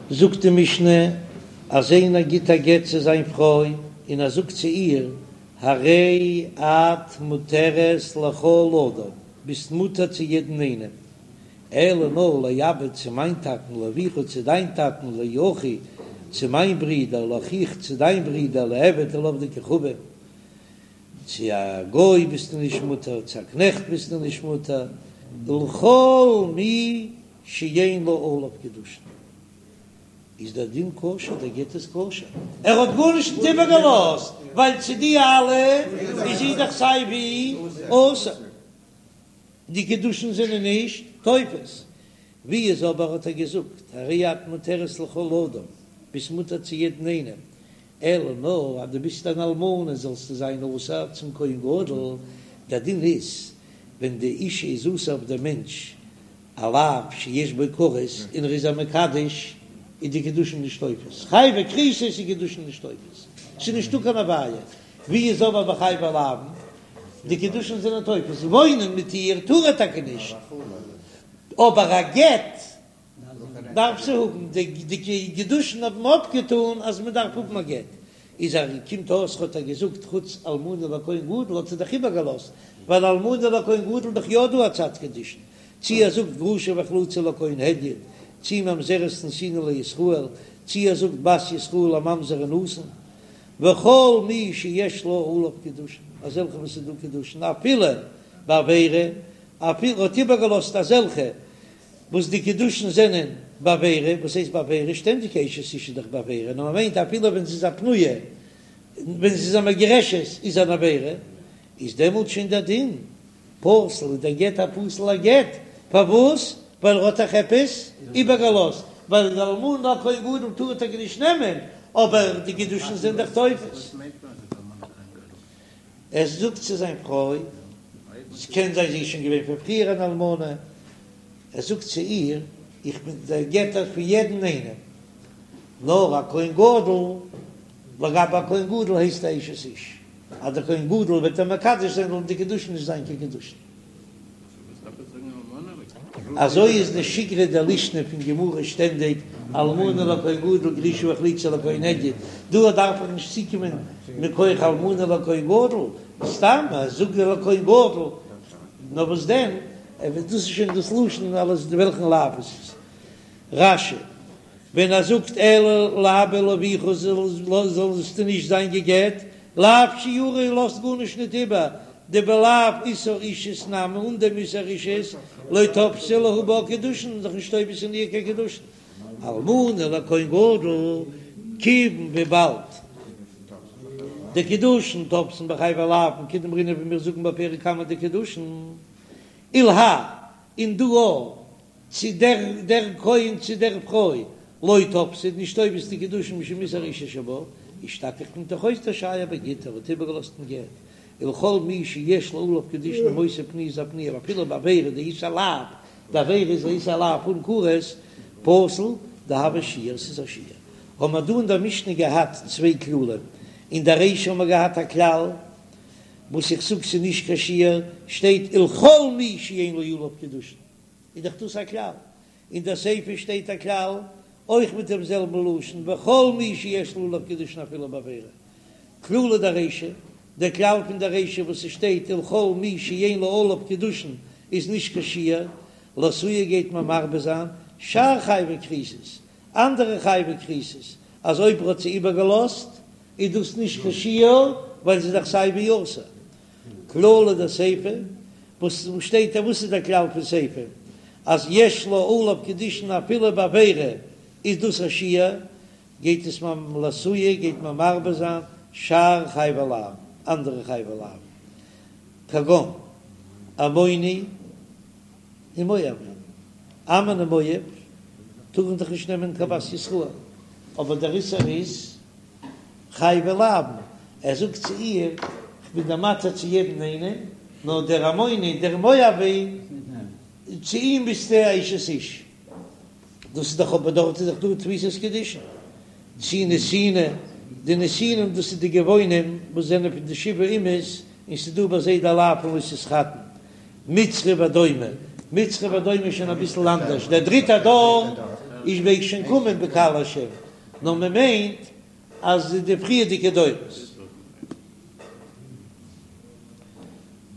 זאגט די משנה אז איינער גיט א גט צו זיין פרוי און ער זאגט צו איר הרי את מותרת לכל אדם, ביסט מותר צו יעדן איינעם, אלא נאר לאבא צו מיין טאטן, לאביך צו דיין טאטן, לאחי צו מיין ברודער, לאחיך צו דיין ברודער, לעבד ולעובדי כוכבים, צו א גוי ביסטו נישט מותר, צו א קנעכט ביסטו נישט מותר, ולכל מי שאין לה עליו קידושין איז דער דין כשר, דער גט איז כשר, ער האט גארנישט נישט איבערגעלאזט, ווייל צו די אלע איז זי דאך סיי ווי אסור, די קידושין זענען נישט תופס, ווי איז אבער האט ער געזאגט הרי את מותרת לכל אדם, ביסט מותר צו יעדן איינעם, אלא נאר אז דו ביסט אן אלמנה זאלסטו זיין אסור צום כהן גדול, דער דין איז ווען די אישה איז אסור אויף דעם מענטש א לאו שיש בו כרת און ער איז איר מקדש איז די קידושין נישט תופס, חייבי כריתות איז קידושין נישט תופס, ס'איז נישטא קיין עביה, ווי איז אבער ביי חייבי לאוין די קידושין זענען תופס, וואוינען מיט איר טאר ער טאקע נישט, אבער א גט דארף זי האבן, די קידושין האבן אפגעטאן אז מען דארף האבן א גט, איז ער קומט אויס האט ער געזאגט חוץ אלמנה לכהן גדול האט זי דאך איבערגעלאזט, ווייל אלמנה לכהן גדול איז דאך יא דא א צד קידושין, צי ער זאגט גרושה וחלוצה לכהן הדיוט, צי ממזרת נתינה לישראל, צי ער זאגט בת ישראל לממזר ונתין, וכל מי שיש לה עליו קידושין, אזעלכע וואס איז דא קידושין אפילו בעבירה, אפילו האט איבערגעלאזט אזעלכע וואס די קידושין זענען בעבירה, וואס הייסט בעבירה? שטענדיג אשת איש איז דאך בעבירה, נאר מען מיינט אפילו ווען זי איז א פנויה, ווען זי איז א מגורשת איז אן עבירה, איז דעמאלט שוין דער דין פסול, איז דער גט א פסול'ער גט, פארוואס? ווייל ער האט דאך עפעס איבערגעלאזט, ווייל די אלמנה לכהן גדול טאר ער טאקע נישט נעמען, אבער די קידושין זענען דאך תופס. ער זאגט צו זיין פרוי, ס'קען זיין זי איז שוין געווען פון פריער אן אלמנה, ער זאגט צו איר, איך בין דיר גע'גט פון יעדן איינעם, נאר א כהן גדול, לגבי א כהן גדול הייסט א אשת איש, אז דער כהן גדול וועט איר מקדש זיין זאלן די קידושין נישט זיין קיין קידושין. אזוי איז די שיגרא דלישנא פון גמרא שטענדיג, אלמנה לכהן גדול גרושה וחלוצה לכהן הדיוט, דא דארף איך נישט צוקומען מכח אלמנה לכהן גדול, סתם אז זאג לכהן גדול, נאר וואס דען, דאס איז שוין דאס לשון אלעס וועלכן לאו עס איז. רש"י, ווען ער זאגט אלא לאבא ולאביך זאלסטו נישט זיין גע'גט, לאו שיורא לאזט גארנישט ניט איבער, דבלאו איסור אישות נמי אן דעם איסור אישות לא תפסי להו בה קידושין איז דאך נישט תופס אין איר קיין קידושין. אלמנה לכהן גדול כיוון וויבאלד דקידושין תופסין בחייבי לאוין כדאמרינן ווי מיר זאגן בפרק קמא דקידושין ולהאי און דא אויך צו דער דער כהן צו דער פרוי, לא תפסי נישט תופס די קידושין משום איסור אישות שבה, אישתכח קומט דאך אויס דשייר בגיטא ער האט איבערגעלאזט אין גט, ולכל מי שיש לה עליו קידושין אם היתה פנויה איז א פנויה אפילו בעבירה דאיסור לאו, די עבירה איז א איסור לאו אן כרת, פסול דהוי שיור ס'איז א שיור. האבן מיר דא אין דער משנה געהאט צוויי כללים, אין דער רישא האבן מיר געהאט א כלל וואס איך זאג ס'איז נישט קיין שיור, שטייט ולכל מי שאין לה עליו קידושין, איז דאך דאס א כלל. אין דער סיפא שטייט א כלל, אויך מיט דעם זעלבן לשון, וכל מי שיש לה עליו קידושין אפילו בעבירה. כללא דרישא, דער כלל פון דער רישא וואס עס שטייט ולכל מי שאין לה עליו קידושין איז נישט קיין שיור, לאתויי גייט מען מרבה זיין שאר חייבי כריתות, אנדערע חייבי כריתות, אז אויב ער האט זי איבערגעלאזט איז דאס נישט קיין שיור, ווייל זי איז דאך סיי ווי אסור. כללא דסיפא, וואס שטייט דא? וואס איז דער כלל פון סיפא? אז יש לה עליו קידושין אפילו בעבירה איז דאס א שיור, גייט עס מ לאתויי גייט מען מרבה זיין שאר חייבי לאוין, אנדערע חייבי לאוין, כגון עמוני ומואבי, עמון און מואב טארן דאך נישט נעמען קיין בת ישראל, אבער דער איסור איז חייבי לאוין, ער זאגט צו איר, כ'בין דיר מתיר צו יעדן איינעם, נאר דער עמוני, דער מואבי, צו אים ביסטו א אשת איש. דאס איז דאך אבער דארט איז דאך דא תפיסת קידושין. צי נתיני, די נתינים דאס איז די גבעונים וואס זענען פון די שבעה אומות, און ס'איז דא ביי זיי די לאו פון לא תתחתן. מצרי ואדומי, מצרי ואדומי איז שוין אביסל אנדערש, דער דריטער דור. איז מעג שוין קומען בקהל השם, נאר מען מיינט אז די פריערדיגע דורות.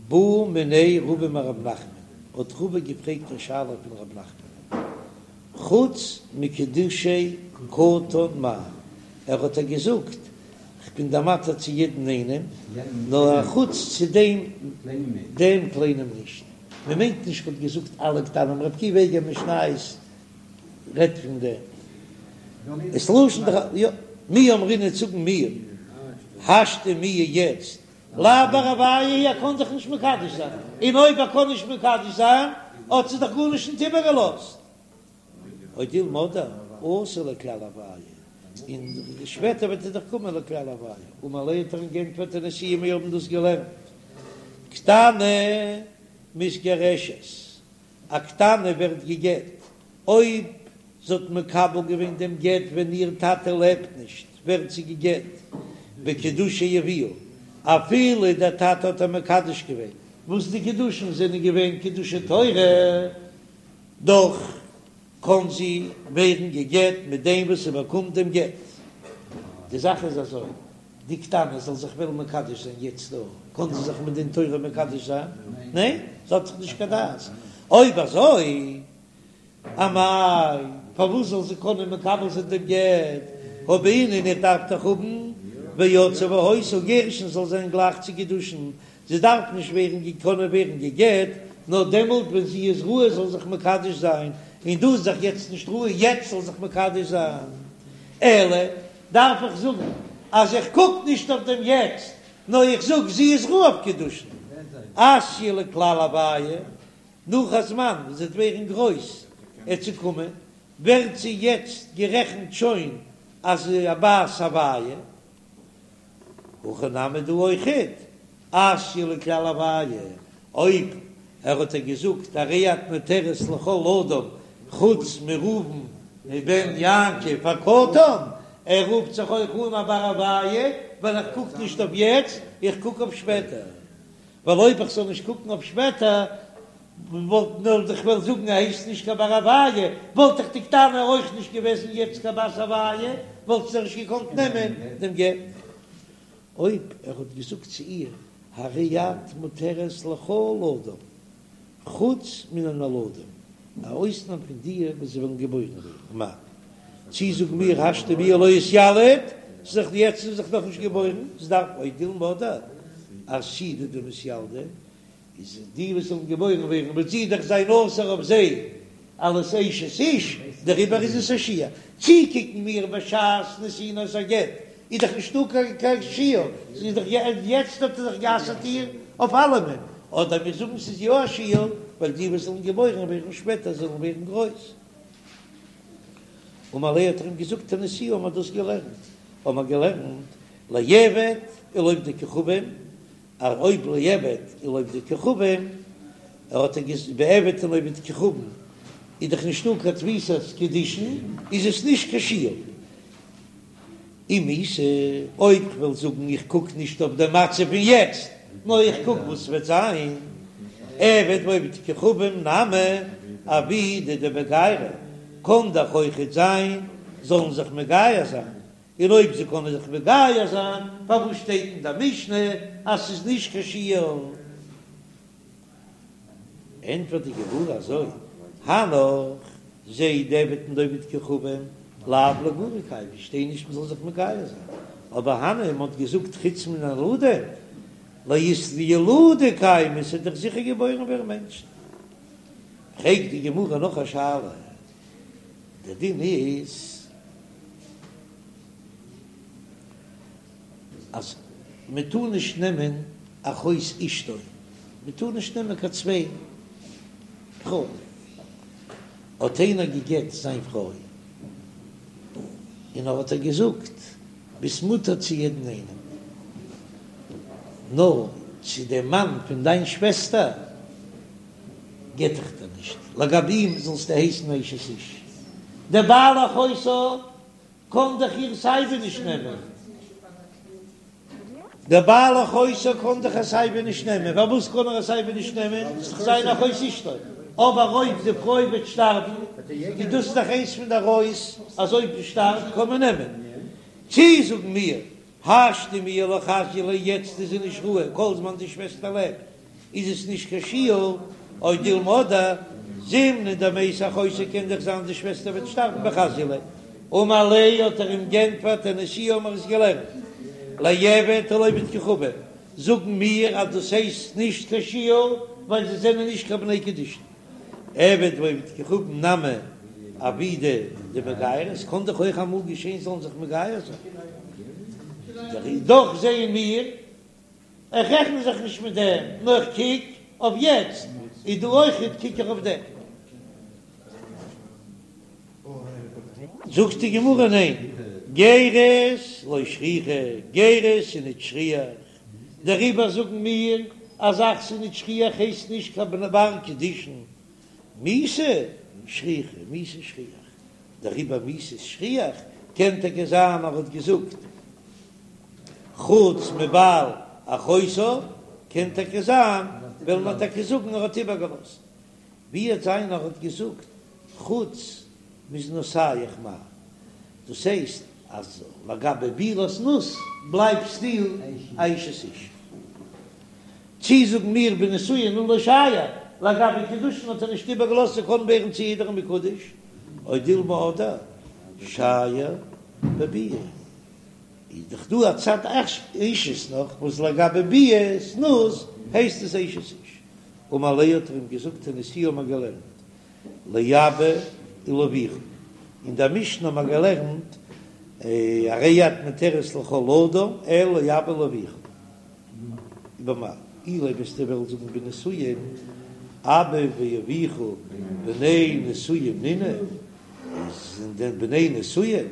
בעא מיניה רבא מרב נחמן, האט רבא געפרעגט א שאלה פון רב נחמן, חוץ מקידושי קטן מהו, ער האט איר געזאגט, כ'בין דיר מתיר צו יעדן איינעם, נאר א חוץ צו דעם דעם קליינעם נישט. מען מיינט נישט כ'האט געזאגט אלע קטנים, ר' עקיבא איגר משניות רעדט פון דעם. עס לשון דכ יא, מי אמרינן זאגן מיר, השתא מיהא יעצט, לאו בר הויה הוא ער קען זיך נישט מקדש זיין, און אויב ער קען נישט מקדש זיין האט זי דאך גארנישט נישט איבערגעלאזט. או דילמא אתי לכלל הויה, און שפעטער וועט ער דאך קומען לכלל הויה, אמר ליה האט ער אים גענטפערט תניתוה מיר האבן דאס געלערנט, קטנה מתגרשת, א קטנה ווערט גע'גט אויב זי האט מקבל געווען דעם גט ווען איר טאטע לעבט נישט, ווערט זי גע'גט בקידושי אביה, אפילו דער טאטע האט איר מקדש געווען, וואס די קידושין זענען געווען קידושי תורה. דאך קען זי ווערן גע'גט מיט דעם וואס זי באקומט דעם גט. די זאך איז אזוי, די קטנה זאל זיך וועלן מקדש זיין יעצט דא, קען זי זיך מדין תורה מקדש זיין? ניין, זי האט דאך נישט קיין דעת. אויב אזוי, אמאי, פארוואס זאל זי קענען מקבל זיין דעם גט? הא בעינן איך דארף דאך האבן ויצאה והיתה, גירושין זאל זיין גלייך צו קידושין, זי דארף נישט ווערן קענען ווערן גע'גט, נאר דעמאלט ווען זי איז ראוי זאל זיך מקדש זיין, און דא איז דאך יעצט נישט ראוי יעצט זאל זיך מקדש זיין, אלא דארף איך זאגן אז איך קוק נישט אויף דעם יעצט, נאר איך זאג זי איז ראוי אויף קידושין, אתיא לכלל הויה, נאך א זמן ווען זי וועט ווערן גרויס עט זי קומען, ווערט זי יעצט גערעכנט שוין אז א בת הויה. הכא נמי דא אויכעט, אתיא לכלל הויה, אויב ער האט איר געזאגט הרי את מותרת לכל אדם חוץ מראובן מבן יעקב הקטן, ער רופט זיך אויך אן א בר הויה, ווייל איך קוק נישט אויף יעצט, איך קוק אויף שפעטער. ווייל אויב איך זאל נישט קוקן אויף שפעטער, וואלט נאר איך וועל זאגן ער הייסט נישט קיין בר הויה, וואלט דאך די קטנה אויך נישט געוועזן יעצט קיין בת הויה, וואלט זי נישט געקאנט נעמען דעם גט. אויב ער האט געזאגט צו איר הרי את מותרת לכל אדם חוץ מן הנולדים, א אויסנאם פון די וואס זיי וועלן געבוירן ווערן, מהו, צי זאגן מיר השתא מיהא לא אתיליד, ס'איז דאך יעצט איז דאך נאכנישט געבוירן, ס'דארף או דילמא עתידי דמתילדי, איז די וואס זאלן געבוירן ווערן וועט זי דאך זיין אסור אויף זיי אלס אשת איש, דעריבער איז עס א שיור. צי קוקן מיר בשעת נתינת הגט איז דאך נישטא קיין שיור, ס'איז דאך יעצט האט ער דאך גע'אסר'ט איר אויף אלעמען, אדער מיר זאגן ס'איז יא א שיור ווייל די וואס זאלן געבוירן ווערן שפעטער זאלן ווערן גרויס. אמר ליה האט ער אים געזאגט תניתוה האבן מיר דאס געלערנט, האבן מיר געלערנט לעבד ולעובדי כוכבים, אז אויב לעבד ולעובדי כוכבים, ער האט ער ביי עבד און עובד כוכבים איז דאך נישטא קיין תפיסת קידושין, איז עס נישט קיין שיור. אם איתא, אויב כ'וועל זאגן איך קוק נישט אויף די מצב פון יעצט, נאר איך קוק וואס וועט זיין, עבד ועובד כוכבים נמי עבידי דמגיירי, קען דאך אויכעט זיין זאלן זיך מגייר זיין, און אויב זיי קענען זיך מגייר זיין, פארוואס שטייט אין די משנה אז ס'איז נישט קיין שיור? ענטפערט די גמרא אזוי, הנך, זיי די עבד און די עובד כוכבים, לאו לאיגורי קיימי, שטייט נישט מ'זאל זיך מגייר זיין, אבער הני מ'האט געזאגט חוץ מן הנולדים, לאיתילודי קיימי, ס'וועט דאך זיכער געבוירן ווערן מענטשן. פרעגט די גמרא נאך א שאלה, דער דין איז אז מען טאר נישט נעמען אחות אשתו, מען טאר נישט נעמען קיין צוויי פרויען. האט איינער גע'גט זיין פרוי און ער האט איר געזאגט ביסט מותר צו יעדן איינעם, נאר צו דעם מאן פון דיין שוועסטער גט איך דיר נישט, לגבי אים זאלסטו הייסן אשת איש, דער בעל אחותה קען דאך איר סייווי נישט נעמען, דער בעל אחותה קען דאך איר סייווי נישט נעמען, פארוואס קען ער איר סייווי נישט נעמען, ס'איז דאך זיין אחות אשתו. אבער אויב די פרוי וועט שטארבן איז דאס דאך איינס פון די עריות אז אויב זי שטארבט קען מען נעמען. צי זאגן מיר השתא מיהא לא חזיא ליה יעצט איז זי נישט ראוי כל זמן די שוועסטער לעבט איז עס נישט קיין שיור או דילמא אדער זימנין דמתה אחותה קען דאך זיין די שוועסטער וועט שטארבן וחזיא ליה אמר ליה האט ער אים גענטפערט תניתוה האבן מיר עס געלערנט לעבד ולעובד כוכבים זאגן מיר אז דאס הייסט נישט קיין שיור ווייל זיי זענען נישט קיין בני קידושין. עבד ועובד כוכבים נמי עבידי דמגיירי, עס קען דאך אויך אמאל געשען זאלן זיך מגייר זיין, דאך זעען מיר, איך רעכן זיך נישט מיט דעם, נאר איך קוק אויף יעצט, איז דא אויכעט קוק איך אויף דעם. זאגט די גמרא ניין, גירות לא שכיחא, גירות איז נישט שכיח, דעריבער זאגן מיר א זאך ס'איז נישט שכיח הייסט נישט קיין בר קידושין, מיתה שכיחא, מיתה שכיח, דעריבער מיתה איז שכיח, קען טאקע זיין ער האט געזאגט חוץ מבעל אחותה, קען טאקע זיין וועלן מיר טאקע זאגן ער האט איבערגעלאזט, ווי וועט זיין ער האט געזאגט חוץ מזנותיך מאי, דאס הייסט אז לגבי בעילת זנות בלייבסטו א אשת איש. צי זאגן מיר בנישואין הוא לא שייר, לגבי קידושין האט ער נישט איבערגעלאזט זי קען ווערן צו יעדערן מקודש, או דילמא אדער שייר בביאה. איז דאך דא א צד אישות נאך וואס לגבי ביאת זנות הייסט עס אשת איש. אמר ליה האט ער אים געזאגט תניתוה האבן מיר געלערנט לאבא ולאביך, אין דער משנה האבן מיר געלערנט הרי את מותרת לכל אדם אלא לאבא ולאביך, במאי אילימא וועסטו וועלן זאגן בנישואין אבא ואביך בני נישואין נינהו, זענען דען בני נישואין?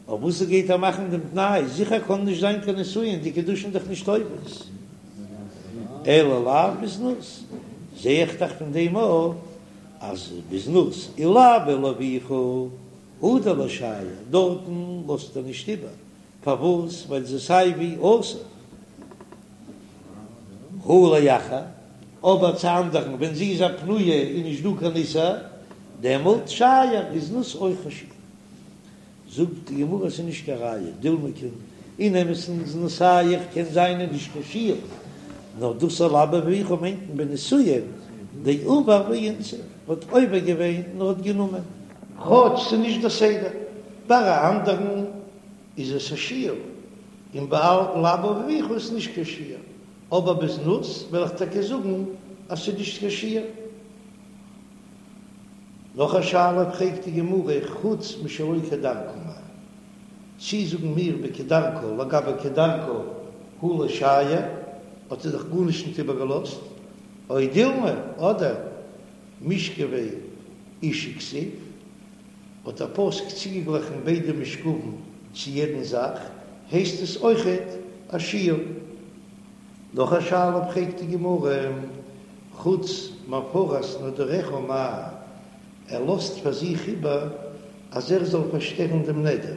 אויף וואס גייט ער מאכן דעם תנאי? זיכער קען נישט זיין קיין נישואין, די קידושין דאך נישט תופס, אלא לאו בזנות, זע איך דאך פון דעם אויך אז בזנות ולאבא ולאביך הוא דלא שייר, דארטן לאזט ער נישט איבער, פארוואס? ווייל זי סיי ווי אסור הא לאחר, אבער צו אנדערן ווען זי איז א פנויה איז נישט דא קיין איסור, דעמאלט שייר איז זנות אויך א שיור. זאגט די גמרא ס'איז נישט קיין ראיה, דילמא קען אין אמת'ן זנותיך קען זיין איז נישט קיין שיור, נאר דאס לאבא ולאביך מיינט מען בנישואין דעבר ואינסיב האט עובר געווען און האט גענומען. כאטש ס'איז נישט די סדר, ביי א אנדערן איז עס א שיור, און ביי לאבא ולאביך איז נישט קיין שיור, אבער בזנות וועל איך טאקע זאגן אז ס'איז נישט קיין שיור. נאך א שאלה פרעגט די גמרא, חוץ משלא כדרכה מאי? צי זאגן מיר בכדרכה לגבי כדרכה הוא לא שייר, האט ער דאך גארנישט נישט איבערגעלאזט, או דילמא, אדער משכבי אשה כתיב, האט דער פסוק צוגעגליכן ביידע משכבים צו יעדן זאך, הייסט עס אויכעט א שיור. נאך א שאלה פרעגט די גמרא, חוץ מהפרת נדריך מאי, ער לאזט פאר זיך איבער אז ער זאל פארשטערן דעם נדר,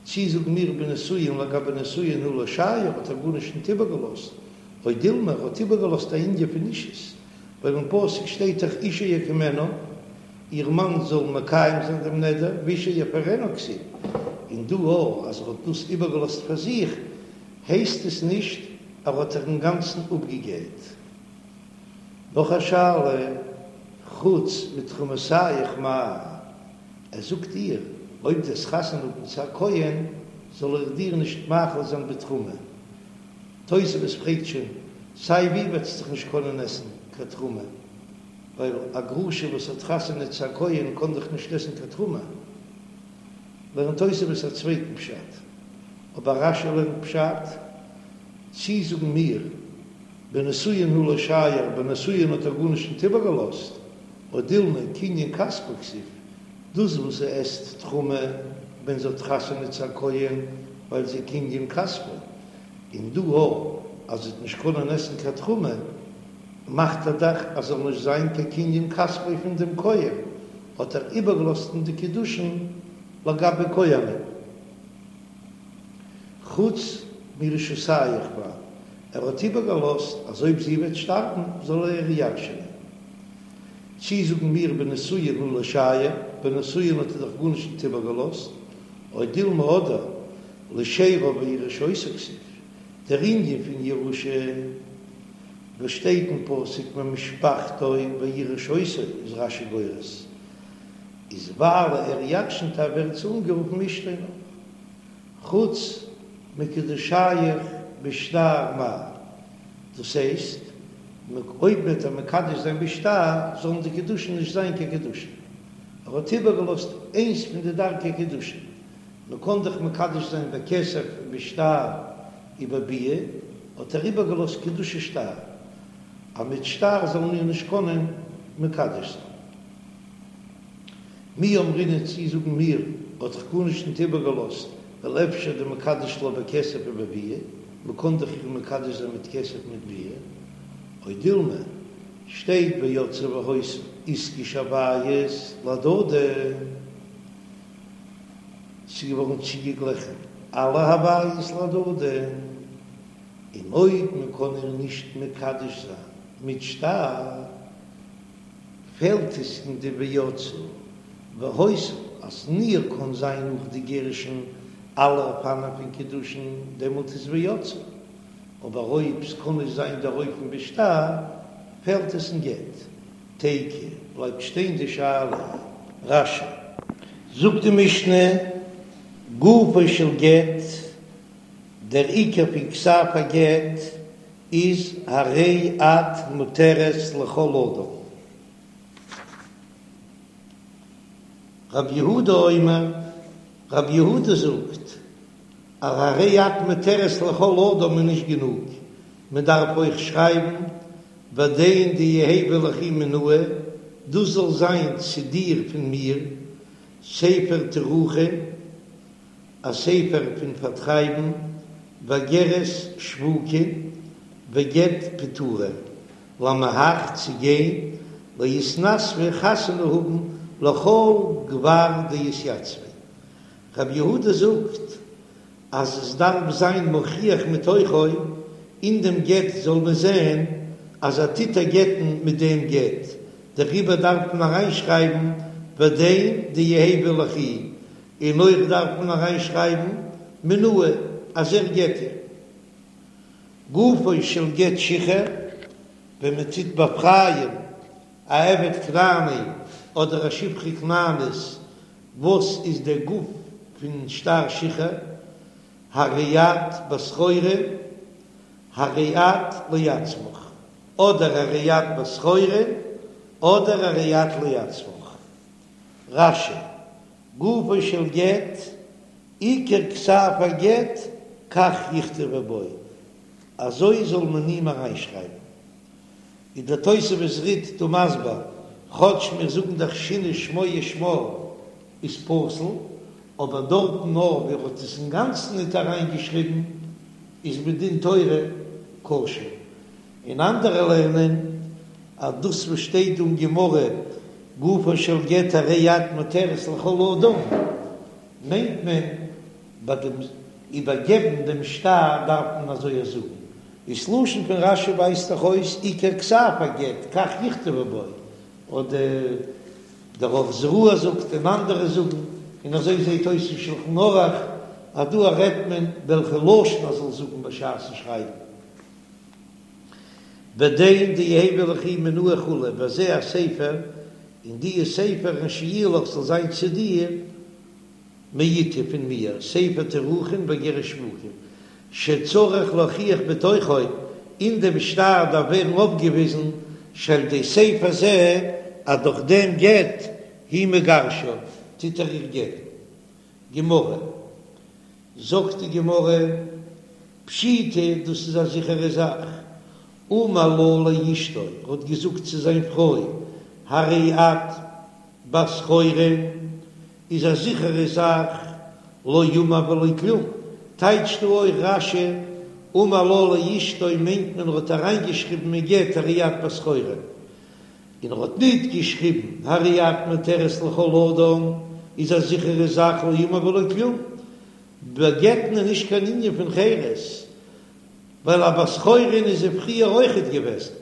צי זאגן מיר בנישואין לגבי נישואין הוא לא שייר האט ער גארנישט ניט איבערגעלאזט, או דילמא ער האט איבערגעלאזט א ענין פון אישות, ווייל אין פסוק שטייט דאך אישה יקימנו, איר מאן זאל מקיים זיין דעם נדר, ואישה יפרנה כתיב, און דא אויך אז ער האט דאס איבערגעלאזט פאר זיך, הייסט עס נישט ער האט זיך אינגאנצן אפגעגעט. נאך א שאלה, חוץ מתרומותיך מאי, ער זאגט איר, אויב דו וועסט חתונה האבן צו א כהן, זאל איך דיר נישט מאכיל זיין בתרומה. תוספות פרעגט שוין, סיי ווי וועט זי דאך נישט קענען עסן קיין תרומה, ווייל א גרושה וואס האט חתונה צו א כהן קען דאך נישט עסן קיין תרומה. לערנט תוספות א צווייטן פשט, אבער רש"י לערנט פשט, צי זאגן מיר, בנישואין הוא לא שייר, בנישואין האט ער גארנישט ניט איבערגעלאזט, או דילמא קנין כספו כתיב, דאס וואס זי עסט תרומה ווען זי האט חתונה צו א כהן ווייל זי קנין כספו, און דא אויך אז זי וועט נישט קענען עסן קיין תרומה, מאכט ער דאך אז זאל נישט זיין קיין קנין כספו פון דעם כהן, האט ער איבערגעלאזט אין די קידושין לגבי כהנים. חוץ מירושתיך מאי, ער האט איבערגעלאזט אז אויב זי וועט שטארבן זאל ער איר ירש'ענען. צי זאגן מיר בנישואין הא לא שייר, ביי נישואין האט ער דאך גארנישט ניט איבערגעלאזט, או דילמא אדער לשאריו וירש אותה כתיב, דער ענין פון ירושה וואס שטייט אין פסוק ממשפחתו וירש אותה איז רש"י גורס איז ווייל ער ירשנט איר ווערט זי אנגערופן אשתו נאך חוץ מקידושיך בשטר מהו, דאס הייסט אויב וועט ער מקדש זיין בשטר זאלן די קידושין נישט זיין קיין קידושין, ער האט איבערגעלאזט איינס פון די דרכי קידושין, מען קען דאך מקדש זיין בכסף בשטר ובביאה, האט ער איבערגעלאזט קידושי שטר, אז מיט שטר זאל מען איר נישט קענען מקדש זיין. מי אמרינן צי זאגן מיר האט דאך גארנישט ניט איבערגעלאזט ווייל אפשר דמקדש לה בכסף ובביאה, מען קען דאך איר מקדש זיין מיט כסף מיט ביאה, או דילמא שטייט ויצאה והיתה איתקש הוויות להדדי, ס'איז געווארן צוגעגליכן אלע הוויות להדדי, און אויב מען קען איר נישט מקדש זיין מיט שטר, פעלט עס אין די ויצאה והיתה אז אין איר קאן זיין נאך די גירושין אלע אופנים פון קידושין דעמאלט איז ויצאה, אבער אויב ס'קאן נישט זיין דער אופן בשטר פעלט עס אין גט. תיקו בלייבט שטיין די שאלה. רש"י. זאגט די משנה, גופו של גט, דער עיקר פון כתב הגט איז הרי את מותרת לכל אדם. רב יהודה אומר, רב יהודה זאגט אז הרי את מותרת לכל אדם איז נישט גענוג, מען דארף אויך שרייבן ודין דיהוי ליכי מינאי, דאס זאל זיין צו דיר פון מיר, ספר תירוכין, א ספר פון פארטרייבן, ואגרת שבוקין, וגט פיטורין, למהך צו גיין, לאיתנסבא חתונה האבן לכל גבר דאתיצביה. רבי יהודה זאגט אז עס דארף זיין מוכיח מתוכו, אין דעם גט זאל מען זען אז ער טוט איר גט'ן מיט דעם גט, דעריבער דארף מען אריינשרייבן ודין דיהוי ליכי, און אויך דארף מען אריינשרייבן מינאי אז ער גט איר. גופו של גט שחרור, ווען מען טוט באפרייען א עבד כנעני אדער א שפחה כנענית, וואס איז דער גוף פון שטר שחרור, הרי את בת חורין, הרי את לעצמך, אדער הרי את בת חורין, אדער הרי את לעצמך. רש"י, גופו של גט, עיקר כתב הגט, כך יכתבו בו, אזוי זאל מען אים אריינשרייבן. איז דער תוספות רי"ד דא מסביר, כאטש מיר זאגן דאך שינה שמו ושמה איז פסול, אבער דארטן נאר ווי ער האט עס אינגאנצן ניט אריינגעשריבן איז מדין תורה כשר, און אנדערע לערנען אז דאס וואס שטייט דא אין גמרא גופו של גט הרי את מותרת לכל אדם מיינט מען ביי דעם איבערגעבן דעם שטר דארף מען אזוי זאגן, איז לשון פון רש"י ווייזט דאך אויס עיקר כתב הגט כך יכתבו בו, אדער דער אור זרוע זאגט און אנדערע זאגן, און אזוי זעט אויס אין שלחן ערוך אז דא רעדט מען וועלכע לשון ער זאל זאגן בשעת'ן שרייבן. ודין דיהוי ליכי מינאי כו' וזה הספר, און דיע ספר אשר יהיה לך זאל זיין צו דיר מאתי פון מיר, ספר תירוכין ואגרת שבוקין, שצריך להוכיח בתוכו, אין דעם שטר דארף ווערן אויפגעוויזן שעל ידי ספר זה אז דורך דעם גט הוא מגרשה טוט ער איר גט'ן. גמרא, זאגט די גמרא, פשיטא, דאס איז א זיכערע זאך, אמר לה לאשתו, ער האט געזאגט צו זיין פרוי, הרי את בת חורין, איז א זיכערע זאך, לא אמר ולא כלום, טייטשט דא אויך רש"י, אמר לה לאשתו מיינט מען ער האט אריינגעשריבן אין גט הרי את בת חורין, און ער האט ניט געשריבן הרי את מותרת לכל אדם, איז א זיכערע זאך לא אמר ולא כלום, ביי גט'ן איז נישט קיין ענין פון חירות, ווייל א בת חורין איז זי פריער אויכעט געוועזן.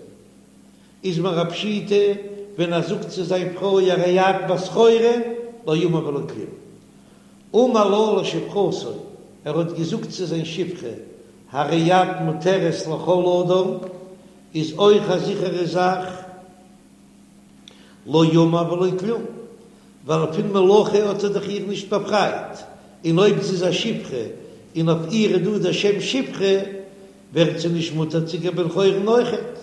איז מיר א פשיטא. ווען ער זאגט צו זיין פרוי הרי את בת חורין, לא אמר ולא כלום. אמר לה לשפחתו, ער האט געזאגט צו זיין שפחה, הרי את מותרת לכל אדם, איז אויך א זיכערע זאך, לא אמר ולא כלום, ווייל פון מלאכה האט ער דאך איר נישט באפרייט, און אויב זי איז א שפחה און אויף איר איז דא דער שם שפחה, ווערט זי נישט מותר צו קיין בן חורין אויכעט.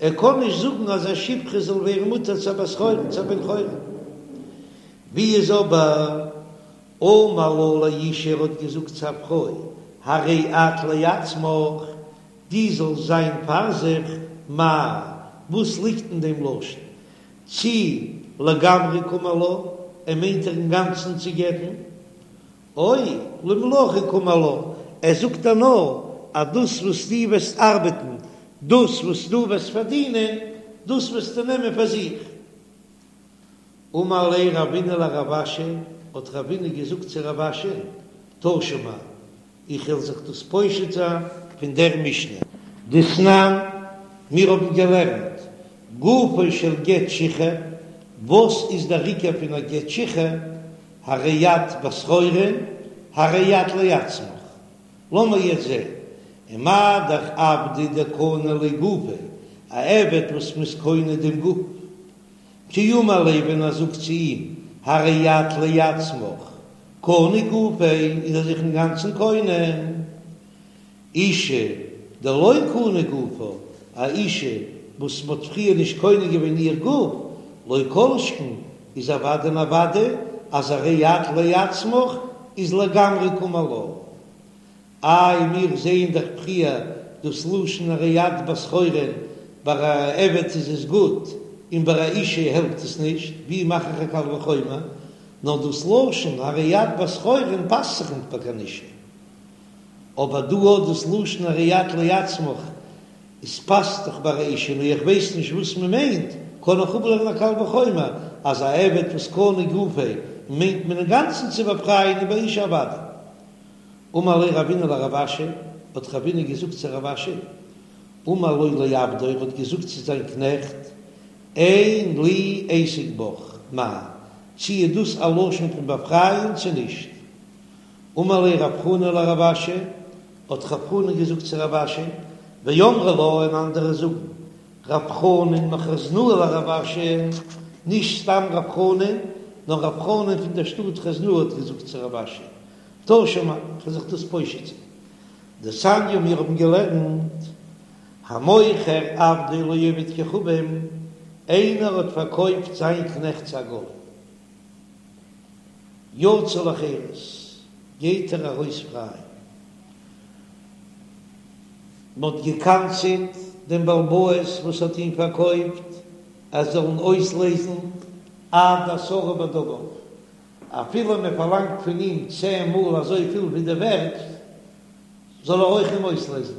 ער קען נישט זאגן אז א שפחה זאל ווערן מותר צו א בת חורין, צו א בן חורין. ווי איז אבער אמר לה לאשה ער האט געזאגט צו א פרוי, הרי את לעצמך, דו זאלסט זיין פאר זיך, מאי, וואס ליגט אין דעם לשון? צי לגמרי קאמר לה, ער מיינט איר אינגאנצן צו גט'ן, או למלאכה קאמר לה, ער זאגט איר נאר אז דאס וואס דו וועסט ארבעטן, דאס וואס דו וועסט פארדינען, דאס וועסטו נעמען פאר זיך. אמר ליה רבינא לרב אשי, האט רבינא געזאגט צו רב אשי, תא שמע, איך וועל זיך דאס פושט זיין פון דער משנה. דתנן, מיר האבן געלערנט, גופו של גט שחרור, וואס איז דער עיקר פון א גט שחרור, הרי את בת חורין, הרי את לעצמך. לאמיר יעצט זען, ומה דאך עבדא דקני ליה גופיה, א עבד וואס מ'איז קונה דעם גוף, כי אמר ליה ווען ער זאגט צו אים, הרי את לעצמך, קני גופיה, איז ער זיך אינגאנצן קונה. אשה דלא קני גופה, א אישה וואס מ'האט פריער נישט קונה געווען איר גוף, לא כל שכן, איז אוודאי און אוודאי אז הרי את לעצמך איז לגמרי קאמר לה. איי מיר זעען דאך פריער דאס לשון הרי את בת חורין, ביי א עבד איז עס גוט און ביי א אישה העלפט עס נישט, ווי מאך איך א קל וחומר? נאר דאס לשון הרי את בת חורין פאסט זיך ניט ביי קיין אישה. אבער דא האט דאס לשון הרי את לעצמך, עס פאסט דאך ביי א אישה, נו איך ווייס נישט וואס מען מיינט, קען איך אפלערנען א קל וחומר אז א עבד וואס קני גופיה מיינט מען אינגאנצן צו באפרייען און ביי אישה אוודאי. אמר ליה רבינא לרב אשי, האט רבינא געזאגט צו רב אשי, אמר לו לעבדו, ער האט געזאגט צו זיין קנעכט, אין לי עסק בך, מאי, צי איז דאס א לשון פון באפרייען צו נישט? אמר ליה רב חנא לרב אשי, האט רב חנא געזאגט צו רב אשי, ואמרי לה און אנדערע זאגן, רב חנן מחוזנאה לרב אשי, נישט סתם רב חנן, נאר רב חנן פון דער שטאט חוזנאה האט געזאגט צו רב אשי, תא שמע, כ'וועל זיך דאס פושט זיין. דתניא מיר האבן געלערנט, המוכר עבדו לעובד כוכבים, איינער האט פארקויפט זיין קנעכט צו א גוי, יצא לחירות, גייט ער ארויס פריי. מ'האט גע'קנס'עט דעם בעל הבית וואס האט אים פארקויפט, ער זאל אים אויסלעזן עד עשרה בדמיו, אפילו מען פארלאנגט פון אים צען מאל אזויפיל ווי די ווערט, זאל ער אויך אים אויסלעזן,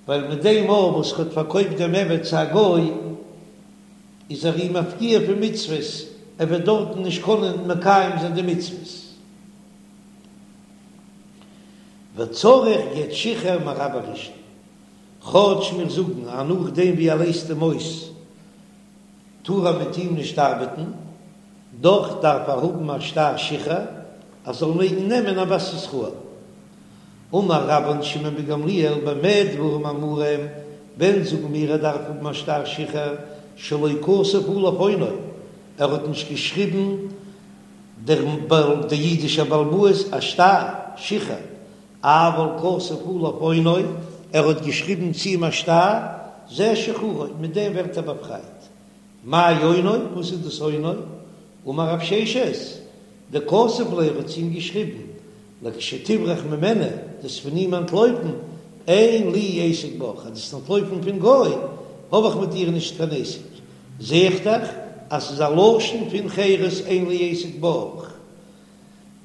ווייל מיט דעם מאל וואס ער האט פארקויפט דעם עבד צו א גוי, איז ער אים מפקיע פון מצוות, ער וועט דארטן נישט קענען מקיים זיין די מצוות. וצריך גט שחרור מרבו ראשון, כאטש מיר זאגן אז נאכדעם ווי ער לייזט אים אויס טאר ער מיט אים נישט ארבעטן, דאך דארף ער האבן א שטר שחרור אז זאל מעגן נעמען א בת ישראל. אמר רבן שמעון בן גמליאל במה דברים אמורים, ווען זאגן מיר ער דארף האבן א שטר שחרור שלא כתב עליו אונו, ער האט נישט געשריבן דער דער אידישער בעל הבית א שטר שחרור, אבל כתב עליו אונו, ער האט געשריבן צו אים א שטר, זה שחרורו, מיט דעם ווערט ער באפרייט. מאי אונו, וואס איז דאס אונו? אמר רב ששת, דכתב ליה, ער האט צו אים געשריבן, לכשתברח ממנו, דו'סט פון אים אנטלויפן, אין לי עסק בך, אז דו'סט אנטלויפן פון גוי, האב איך מיט דיר נישט קיין עסק. זע איך דאך אז ס'איז א לשון פון חירות אין לי עסק בך.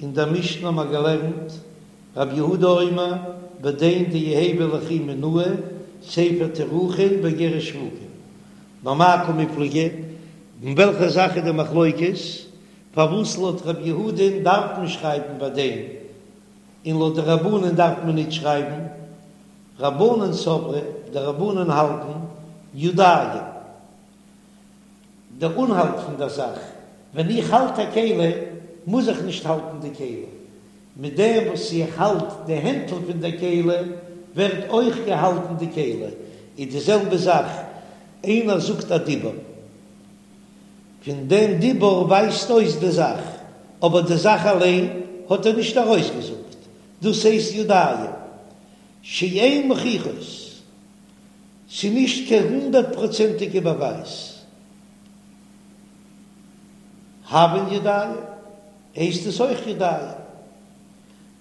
אין דער משנה האבן מיר געלערנט, רב יהודה אומר, בדין דיהוי ליכי מינאי, ספר תירוכין ואיגרת שבוקין. במאי קמיפלגי, אין וועלכע זאך איז די מחלוקת? פארוואס לויט רב יהודה'ן דארף מען שרייבן בדין, און לויט די רבנן דארף מען ניט שרייבן? רבנן סברי, די רבנן האלטן, ידים. דער אנהאלט פון דער זאך, ווען איך האלט א כלי מוז איך נישט האלטן די כלי, מיט דעם וואס איך האלט די הענטל פון דער כלי ווערט אויך געהאלטן די כלי, איז די זעלבע זאך איינער זאגט א דיבור, פון דעם דיבור ווייזט אויס די זאך, אבער די זאך אליין האט ער נישט ארויסגעזאגט, דאס הייסט ידיים שאין מוכיחות, ס'איז נישט קיין הונדערט פראצענטיגע באווייז. הויין ידיים, הייסט עס אויך ידיים.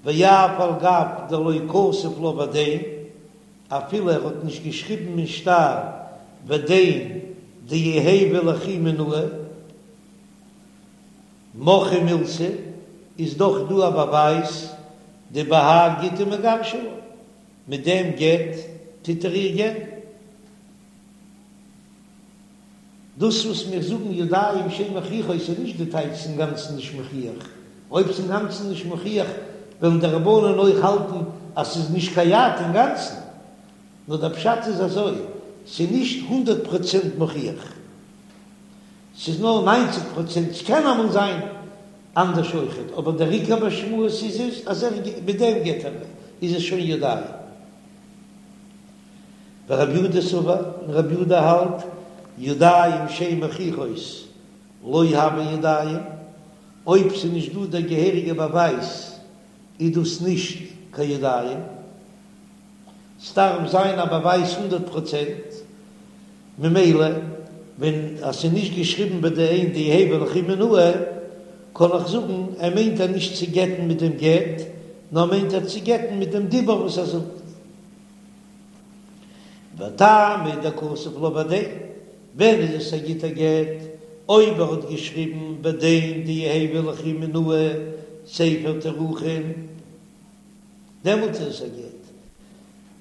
ואף על גב דלא כתב לה ודן, אפילו ער האט נישט געשריבן אין שטר ודן דיהוי ליכי מינאי, מוכחא מילתא, איז דאך דא א באווייז דבהאי גיטא מגרשא לה, מיט דעם גט טוט ער איר גט'ן. דאס וואס מיר זאגן ידיים שאין מוכיחות איז נישט די טייטש ס'אינגאנצן נישט מוכיח, אויב ס'אינגאנצן נישט מוכיח וועלן די רבנן אויך האלטן אז ס'איז נישט קיין יד אינגאנצן, נאר דער פשט איז אזוי, ס'איז נישט הונדערט פראצענט מוכיח, ס'איז נאר ניינציג פראצענט, ס'קען אמאל זיין אנדערש אויכעט, אבער דער עיקר משמעות איז עס אז ער מיט דעם גט ער איז עס שוין ידיים. ורבי יהודה סבר, און רבי יהודה האלט, ידיים שאין מוכיחות לא הוה ידיים, אויב ס'איז נישט דא דער געהעריגער באווייז איז דאס נישט קיין ידיים, ס'דארף זיין א באווייז הונדערט פראצענט, ממילא ווען אז ס'איז נישט געשריבן ודן דיהוי ליכי מינאי, קען איך זאגן ער מיינט איר נישט צו גט'ן מיט דעם גט, נאר מיינט ער צו גט'ן מיט דעם דיבור וואס ער זאגט. וטעמא דכתב לה ודן, ווען איז עס א גוטע גט? אויב ער האט געשריבן ודן דיהוי ליכי מינאי ספר תירוכין, דעמאלט איז עס א גט.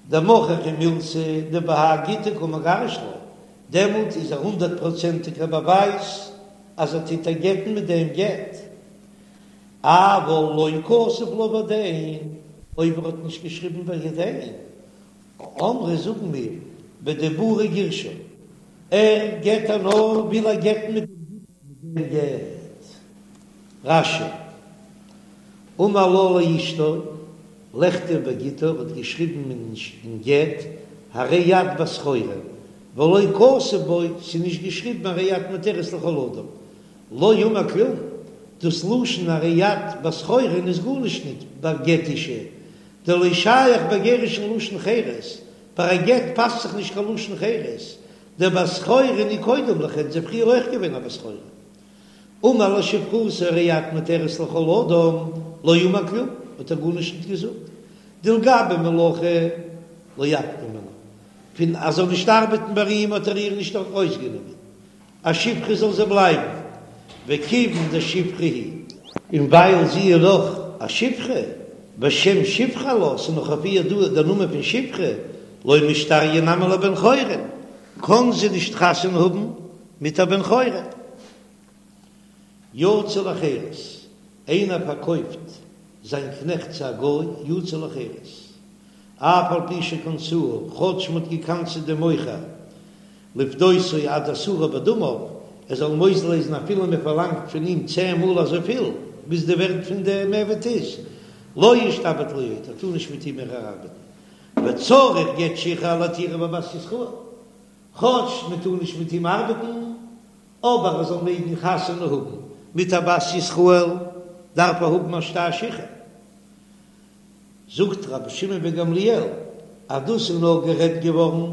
דמוכחא מילתא דבהאי גיטא קא מגרש לה, דעמאלט איז א הונדערט פראצענטיגער באווייז אז ער טוט איר גט'ן מיט דעם גט. אבל לא כתב לה ודן, אויב ער האט נישט געשריבן ודן, אמרי זאגן מיר בדיבורא גירשה, ער גט איר נאר וויל ער גט'ן מיט דעם גט. רש"י, אמר לה לאשתו, לכתוב בגיטה האט געשריבן אין גט, הרי את בת חורין, ולא כתב בו, ס'איז נישט געשריבן הרי את מותרת לכל אדם, לא אמר כלום, דאס לשון הרי את בת חורין איז גארנישט ניט ביי גט אשה, דלא שייך בגירושין לשון חירות, ביי א גט פאסט זיך נישט קיין לשון חירות, דבת חורין היא קודם לכן, זי איז פריער אויך געווען א בת חורין. אמר לשפחתו הרי את מותרת לכל אדם, לא אמר כלום, האט ער גארנישט ניט געזאגט, דלגבי מלאכה לא אפקה מינה, פון אז זאל נישט ארבעטן ביי אים האט ער איר נישט ארויסגענומען, א שפחה זאל זי בלייבן, וכיוון דשפחה היא. און ווייל זי איז נאך א שפחה, ושם שפחה עלה, ס'איז נאך אויף איר דא דער נאמען פון שפחה, לא משתריא נמי לבן חורין, קען זי נישט חתונה האבן מיט א בן חורין. יצא לחירות, איינער פארקויפט זיין קנעכט צו א גוי, יצא לחירות, אף על פי שקנסוהו, כאטש מ'האט געקנס'עט דעם מוכר, לפדותו עד עשרה בדמיו, ער זאל אים אויסלייזן אפילו מען פארלאנגט פון אים צען מאל אזויפיל ביז די ווערט פון דעם עבד איז, לא ישתעבד לו עוד, ער טאר נישט מיט אים מער ארבעטן, וצריך גט שחרור להתירו בבת ישראל, כאטש מען טאר נישט מיט אים ארבעטן, אבער ער זאל מעגן חתונה האבן מיט א בת ישראל דארף ער האבן א שטר שחרור. זאגט רבי שמעון בן גמליאל אז דאס איז נאר גערעדט געווארן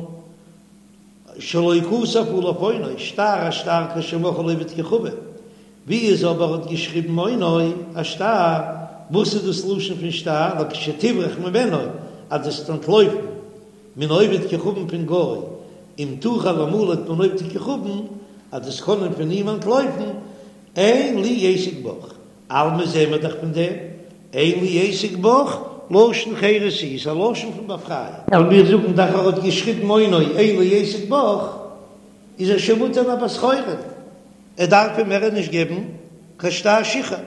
שלא כתב עליו אונו, שטר א שטר כשמכרו לעובד כוכבים, ווי איז אבער האט געשריבן אונו א שטר, וואס איז דאס לשון פון שטר לכשתברח ממנו אז דו וועסט אנטלויפן מן העובד כוכבים פון גוי אם תוכל למלט מן עובד כוכבים אז דו וועסט קענען פון אים אנטלויפן אין לי עסק בך אלמא זעהן מיר דאך פון דעם, אין לי עסק בך, לשון חירות איז א לשון פון באפרייען. ווייל מיר זאגן דאך ער האט געשריבן אונו אין לי עסק בך, איז ער שוין מותר אין א בת חורין, ער דארף אים מער נישט געבן קיין שטר שחרור.